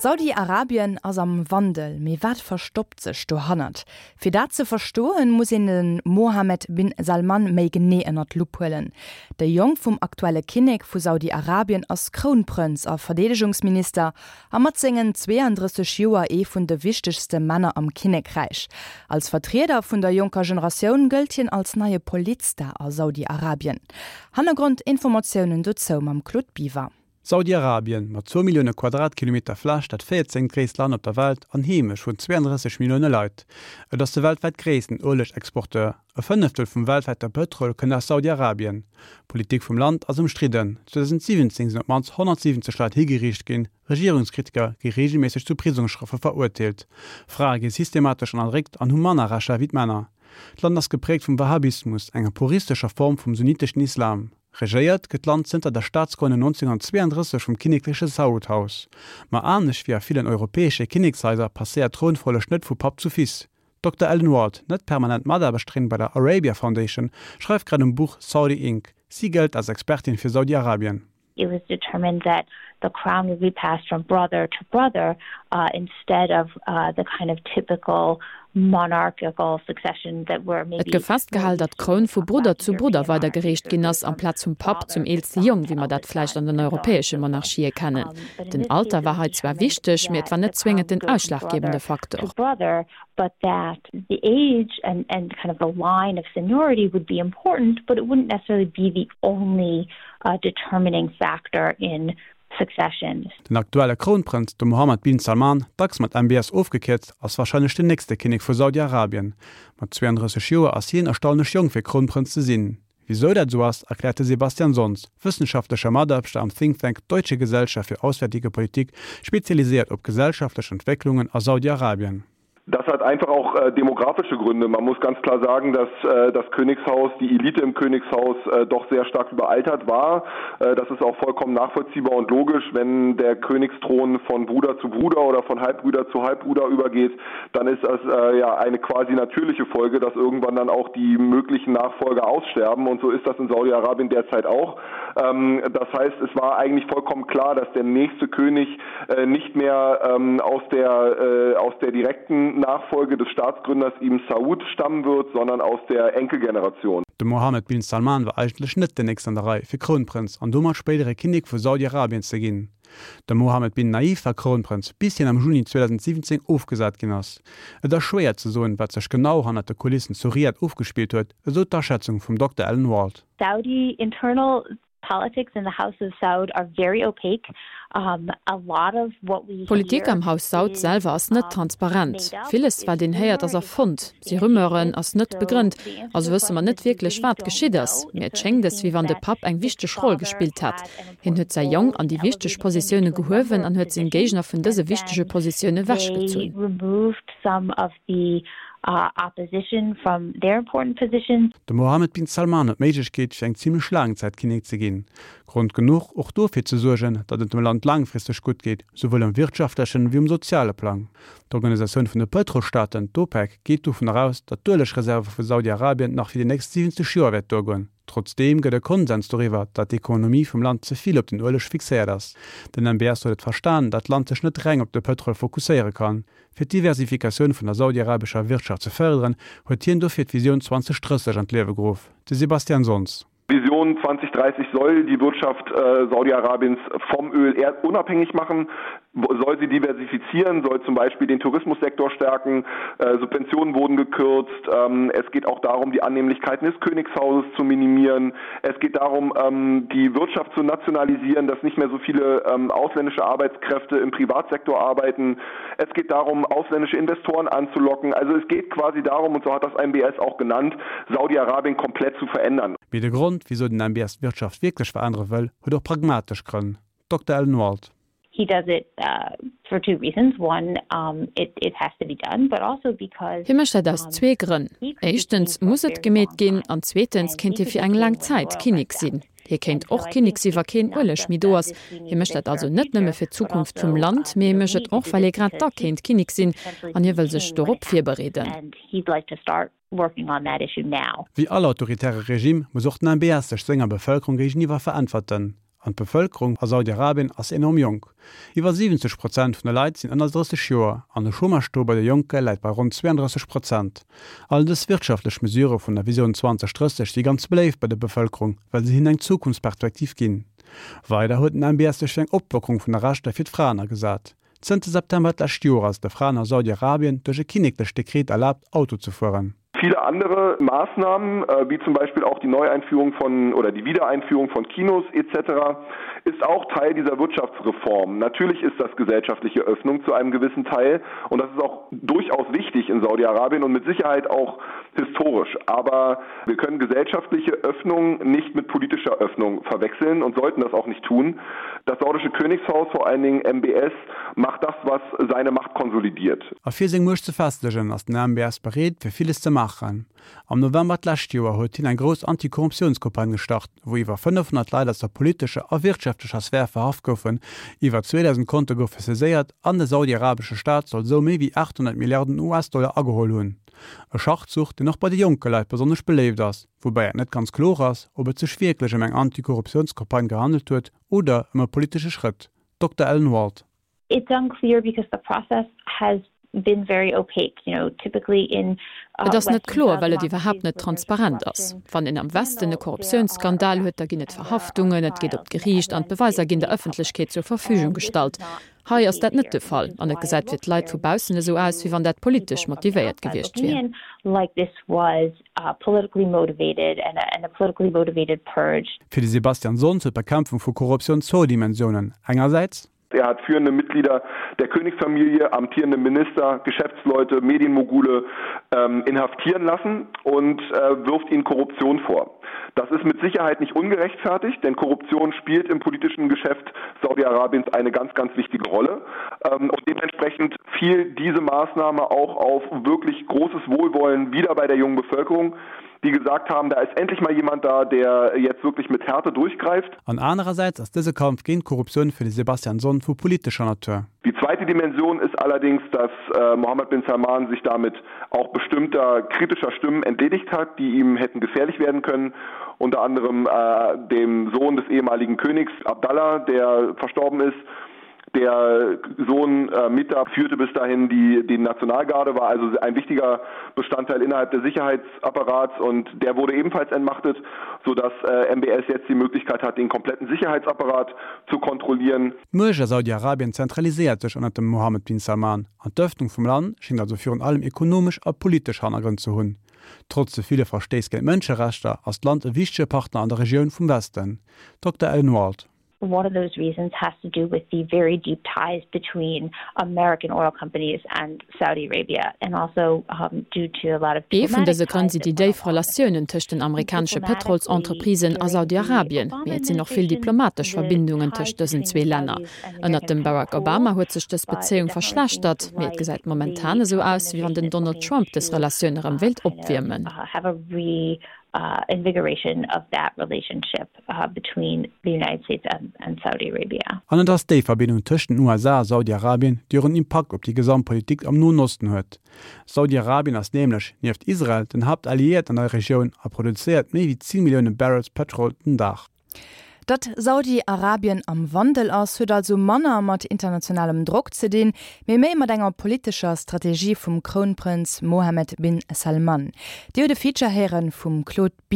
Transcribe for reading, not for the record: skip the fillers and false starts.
Saudi-Arabien ass am Wandel, mee wat verstoppt sech dohannert? Fir dat ze verstoen, muss een de Mohammed bin Salman méi genee ënnert d'Lupp huelen. De Jong vum aktuelle Kinnek vu Saudi-Arabien ass Krounprënz a Verdeedegungsminister a mat sengen 32 Joer ee vun de wichtegste Männer am Kinnekräich. Als Vertrieder vun der jonker Generatioun gëllt hien als neie Politstar a Saudi-Arabien. Hannergrondinformatiounen dozou mam Claude Biver. Saudi-Arabien, mat zwou Millioune Quadratkilometer Fläch dat véierzéngt gréisst Land op der Welt an Heemecht vun 32 Millioune Leit. Et ass de weltwäit gréissten Uelegexporteur. E Fënneftel vum weltwäite Pëtrol kënnt aus Saudi-Arabien. D'Politik vum Land ass ëmstridden. 2017 sinn op d'mannst 170 Leit higeriicht ginn, Regierungskritiker gi reegelméisseg zu Prisongsstrofe verurteelt. Frae gi systematesch ënnerdréckt an hu manner Rechter wéi d'Männer. D'Land ass gepräägt vum Wahhabismus, enger puristescher Form vum sunniteschen Islam. Regéiert gëtt d'Land zënter der Staatsgrënnung 1932 vum kinnekleche Saud-Haus. Ma anescht wéi a villen europäesche Kinnekshaiser passéiert d'Trounfolleg net vu Papp zu Fils. D'Dokter Ellen Ward, net permanent Mataarbechterin bei der Arabia Foundation, schreift grad um Buch Saudi Inc. Si gëllt als Expertin fir Saudi-Arabien. It was determined that the crown would be passed from brother to brother instead of the kind of typical monarchical succession that we're maybe Et gouf festgehal, datt d'Kroun vu Brudder zu Brudder weidergereecht ginn ass, amplaz vum Papp zum eelste Jong, wéi mer dat vläicht an den europäesche Monarchië kennen. Den Alter war hei zwar wichteg, mee et war net zwéngend den ausschlaggebende Faktor. but that the age and and kind of the line of seniority would be important, but it wouldn't necessarily be the only determining factor in succession. Den aktuelle Krounprënz, de Mohammed bin Salman, dacks mat MBS ofgekierzt, ass warscheinlech den nächste Kinnek vu Saudi-Arabien. Mat 32 Joer ass hien erstaunlech jonk fir Krounprënz ze sinn. Wisou dat esou ass, erkläert de Sebastian Sonz, wëssenschaftlecher Mataarbechter am Think Tank Deutsche Gesellschaft für Auswärtige Politik, spezialiséiert op gesellschaftlech Entwécklungen a Saudi-Arabien. Das hat einfach auch äh, demografische Gründe. Man muss ganz klar sagen, dass äh, das Königshaus, die Elite im Königshaus äh, doch sehr stark überaltert war. Äh, das ist auch vollkommen nachvollziehbar und logisch, wenn der Königsthron von Bruder zu Bruder oder von Halbbrüder zu Halbbruder übergeht, dann ist das äh, ja eine quasi natürliche Folge, dass irgendwann dann auch die möglichen Nachfolger aussterben und so ist das in Saudi-Arabien derzeit auch. Ähm, das heißt, es war eigentlich vollkommen klar, dass der nächste König äh, nicht mehr ähm, aus der, äh, aus der direkten Nachfolge des Staatsgründers Ibn Saud stammen wird, sondern aus der Enkelgeneration. De Mohammed bin Salman war eigentlech net den nächsten an der Rei, fir Krounprënz an domat spéidere Kinnek vu Saudi-Arabien ze ginn. De Mohammed bin Naif war Krounprënz, bis hien am Juni 2017 ofgesat ginn ass. Et ass schwéier ze soen, wat sech genau hannert de Kulissen zu Riad ofgespillt huet, esou d'Aschätzung vum Dokter Ellen Wald. Saudi internal politics in the House of Saud are very opaque. A lot of what we hear D'Politik am Haus Saud selwer ass net transparent. Villes, wat een héiert, ass erfonnt, si Rumeuren, ass net begrënnt. Also wësse mer net wierklech, wat geschitt ass. Mee et schéngt es, wéi wann de Papp eng wichteg Roll gespillt hätt. Hien huet säi Jong an déi wichteg Positioune gehuewen an huet seng Géigner vun dëse wichtege Positioune wechgezunn. De Mohammed bin Salman huet d'Méiglechkeet, fir eng zimmlech laang Zäit Kinnek ze ginn. Grond genuch, och dofir ze suergen, datt et dem Land laangfristeg gutt geet, souwuel um wirtschaftlechen ewéi um soziale Plang. D'Organisatioun vun de Pëtrolstaaten, d'OPEC, geet dovun eraus, datt d'Uelegreserve vu Saudi-Arabien nach fir déi nächst 70 Joer wäert duergoen. Trotzdeem gëtt e Konsens doriwwer, datt d'Ekonomie vum Land ze vill op den Ueleg fixéiert ass. Den MBS huet et verstan, datt d'Land sech net reng op de Pëtrol fokusséiere kann. Fir d'Diversifikatioun vun der saudiarabescher Wirtschaft ze fërderen, huet hien dofir d'Visioun 2030 an d'Liewe geruff. De Sebastian Sonz. Vision 2030 soll die Wirtschaft Saudi-Arabiens vom Öl unabhängig machen, soll sie diversifizieren, soll zum Beispiel den Tourismussektor stärken, Subventionen wurden gekürzt, es geht auch darum, die Annehmlichkeiten des Königshauses zu minimieren, es geht darum, die Wirtschaft zu nationalisieren, dass nicht mehr so viele ausländische Arbeitskräfte im Privatsektor arbeiten, es geht darum, ausländische Investoren anzulocken. Also es geht quasi darum, und so hat das MBS auch genannt, Saudi-Arabien komplett zu verändern. Mee de Grond, wisou den MBS d'Wirtschaft wierklech verännere wëll, huet och pragmatesch Grënn. Dokter Ellen Wald. He does it for two reasons, one, it it has to be done, but also because Hie mécht dat aus zwee Grënn, éischtens muss et gemeet ginn an zweetens kéint hie fir eng laang Zäit Kinnek sinn. Hie kéint och Kinnek si wa keen Ueleg méi do ass. Hie mécht dat also net nëmme fir d'Zukunft vum Land, mee hie mécht et och, well hie grad da kéint Kinnek sinn an hie wëll sech dorop virbereeden. Wéi all autoritäre Regime muss och den MBS sech senger Bevëlkerung géigeniwwer veräntwerten. An d'Bevëlkerung a Saudi-Arabien ass enorm jonk. Iwwer 70 Prozent vun de Leit sinn ënner 30 Joer an de Chômage-Taux bei de Jonke läit bei ronn 32 Prozent. All dës wirtschaftlech Mesurë vun der Visioun 2030 si ganz beléift bei der Bevëlkerung, well se hinnen eng Zukunftsperspektiv ginn. Weider huet den MBS sech fir eng Oplockerung vun der Rechter fir d'Fraen agesat. Zënter September d'lescht Joer ass et de Fraen a Saudi-Arabien duerch e kinneklecht Dekret erlaabt, Auto ze fueren. Viele andere Maßnahmen, äh, wie zum Beispiel auch die Neueinführung von oder die Wiedereinführung von Kinos etc., ist auch Teil dieser Wirtschaftsreform. Natürlich ist das gesellschaftliche Öffnung zu einem gewissen Teil und das ist auch durchaus wichtig in Saudi-Arabien und mit Sicherheit auch historisch. Aber wir können gesellschaftliche Öffnung nicht mit politischer Öffnung verwechseln und sollten das auch nicht tun. Das saudische Königshaus, vor allen Dingen MBS, macht das, was seine Macht konsolidiert. A fir seng Muecht ze festegen, ass den MBS bereet, fir villes ze maachen. Am November d'lescht Joer huet hien eng grouss Anti-Korruptiounscampagne gestart, wou iwwer 500 Leit aus der politescher a wirtschaftlecher Sphär verhaft goufen, iwwer 2.000 Konte goufe saiséiert an de saudi-arabesche Staat soll esou méi wéi 800 Milliarden US-Dollar ageholl hunn. E Schachzuch, deen och bei de jonke Leit besonnesch beléift ass, woubäi et net ganz kloer ass, ob et sech wierklech ëm eng Anti-Korruptiounscampagne gehandelt huet oder ëm e politesche Schrëtt. Dokter Ellen Wald. It's unclear because the process has been very opaque, you know, typically in Et ass net kloer, well et iwwerhaapt net transparent ass. Wann een am Westen e Korruptiounsskandal huet, da ginn et Verhaftungen, et geet op d'Geriicht an d'Beweiser ginn der Ëffentlechkeet zur Verfügung gestallt. Hei ass dat net de Fall an et gesäit fir d'Leit vu baussen esou aus, wéi wann dat politesch motivéiert gewiescht wier. Fir de Sebastian Sonz huet d'Bekämpfung vu Korruptioun zwou Dimensiounen, engersäits, Er hat führende Mitglieder der Königsfamilie, amtierende Minister, Geschäftsleute, Medienmogule ähm, inhaftieren lassen und äh, wirft ihnen Korruption vor. Das ist mit Sicherheit nicht ungerechtfertigt, denn Korruption spielt im politischen Geschäft Saudi-Arabiens eine ganz, ganz wichtige Rolle. Ähm, und dementsprechend fiel diese Maßnahme auch auf wirklich großes Wohlwollen wieder bei der jungen Bevölkerung, die gesagt haben, da ist endlich mal jemand da, der jetzt wirklich mit Härte durchgreift. An anerersäits ass dëse Kampf géint d'Korruptioun fir de Sebastian Sonn vu politescher Natur. Die zweite Dimension ist allerdings, dass äh, Mohammed bin Salman sich damit auch bestimmter kritischer Stimmen entledigt hat, die ihm hätten gefährlich werden können, unter anderem äh, dem Sohn des ehemaligen Königs Abdallah, der verstorben ist. Der Sohn äh, Mita führte bis dahin die, die Nationalgarde, war also ein wichtiger Bestandteil innerhalb des Sicherheitsapparats und der wurde ebenfalls entmachtet, sodass äh, MBS jetzt die Möglichkeit hat, den kompletten Sicherheitsapparat zu kontrollieren. D'Muecht a Saudi-Arabien zentraliséiert sech ënnert dem Mohammed bin Salman an d'Ëffnung vum Land schéngt also virun allem ekonomesch a politesch Hannergrënn ze hunn. Trotz de ville Verstéiss géint d'Mënscherechter ass d'Land e wichtege Partner an der Regioun vum Westen. Dokter Ellen Wald. One of those reasons has to do with the very deep ties between American oil companies and Saudi Arabia and also due to a lot of Ee vun dëse Grënn si déi déif Relatiounen tëscht den amerikanesche Pëtrolsentreprisen a Saudi-Arabien, mee et sinn och vill diplomatesch Verbindungen tëscht dësen zwee Länner. Ënnert dem Barack Obama huet sech dës Bezéiung verschlechtert, mee et gesäit momentan esou aus, wéi wann den Donald Trump dës Relatioun erëm wéilt opwiermen. Invigoration of that relationship between the United States and Saudi Arabia. An et ass déi Verbindung tëscht den USA a Saudi-Arabien, déi och en Impakt op déi gesamt Politik am Noen Osten huet. Saudi-Arabien ass nämlech, nieft Israel, den Haaptalliéierten an der Regioun a produzéiert méi wéi 10 Millioune Barrels Pëtrol den Dag. Datt Saudi-Arabien am Wandel ass, huet also manner mat internationalem Drock ze dinn, mee méi mat enger politescher Strategie vum Krounprënz Mohammed bin Salman. Dir huet e Feature héiere vum Claude Biver.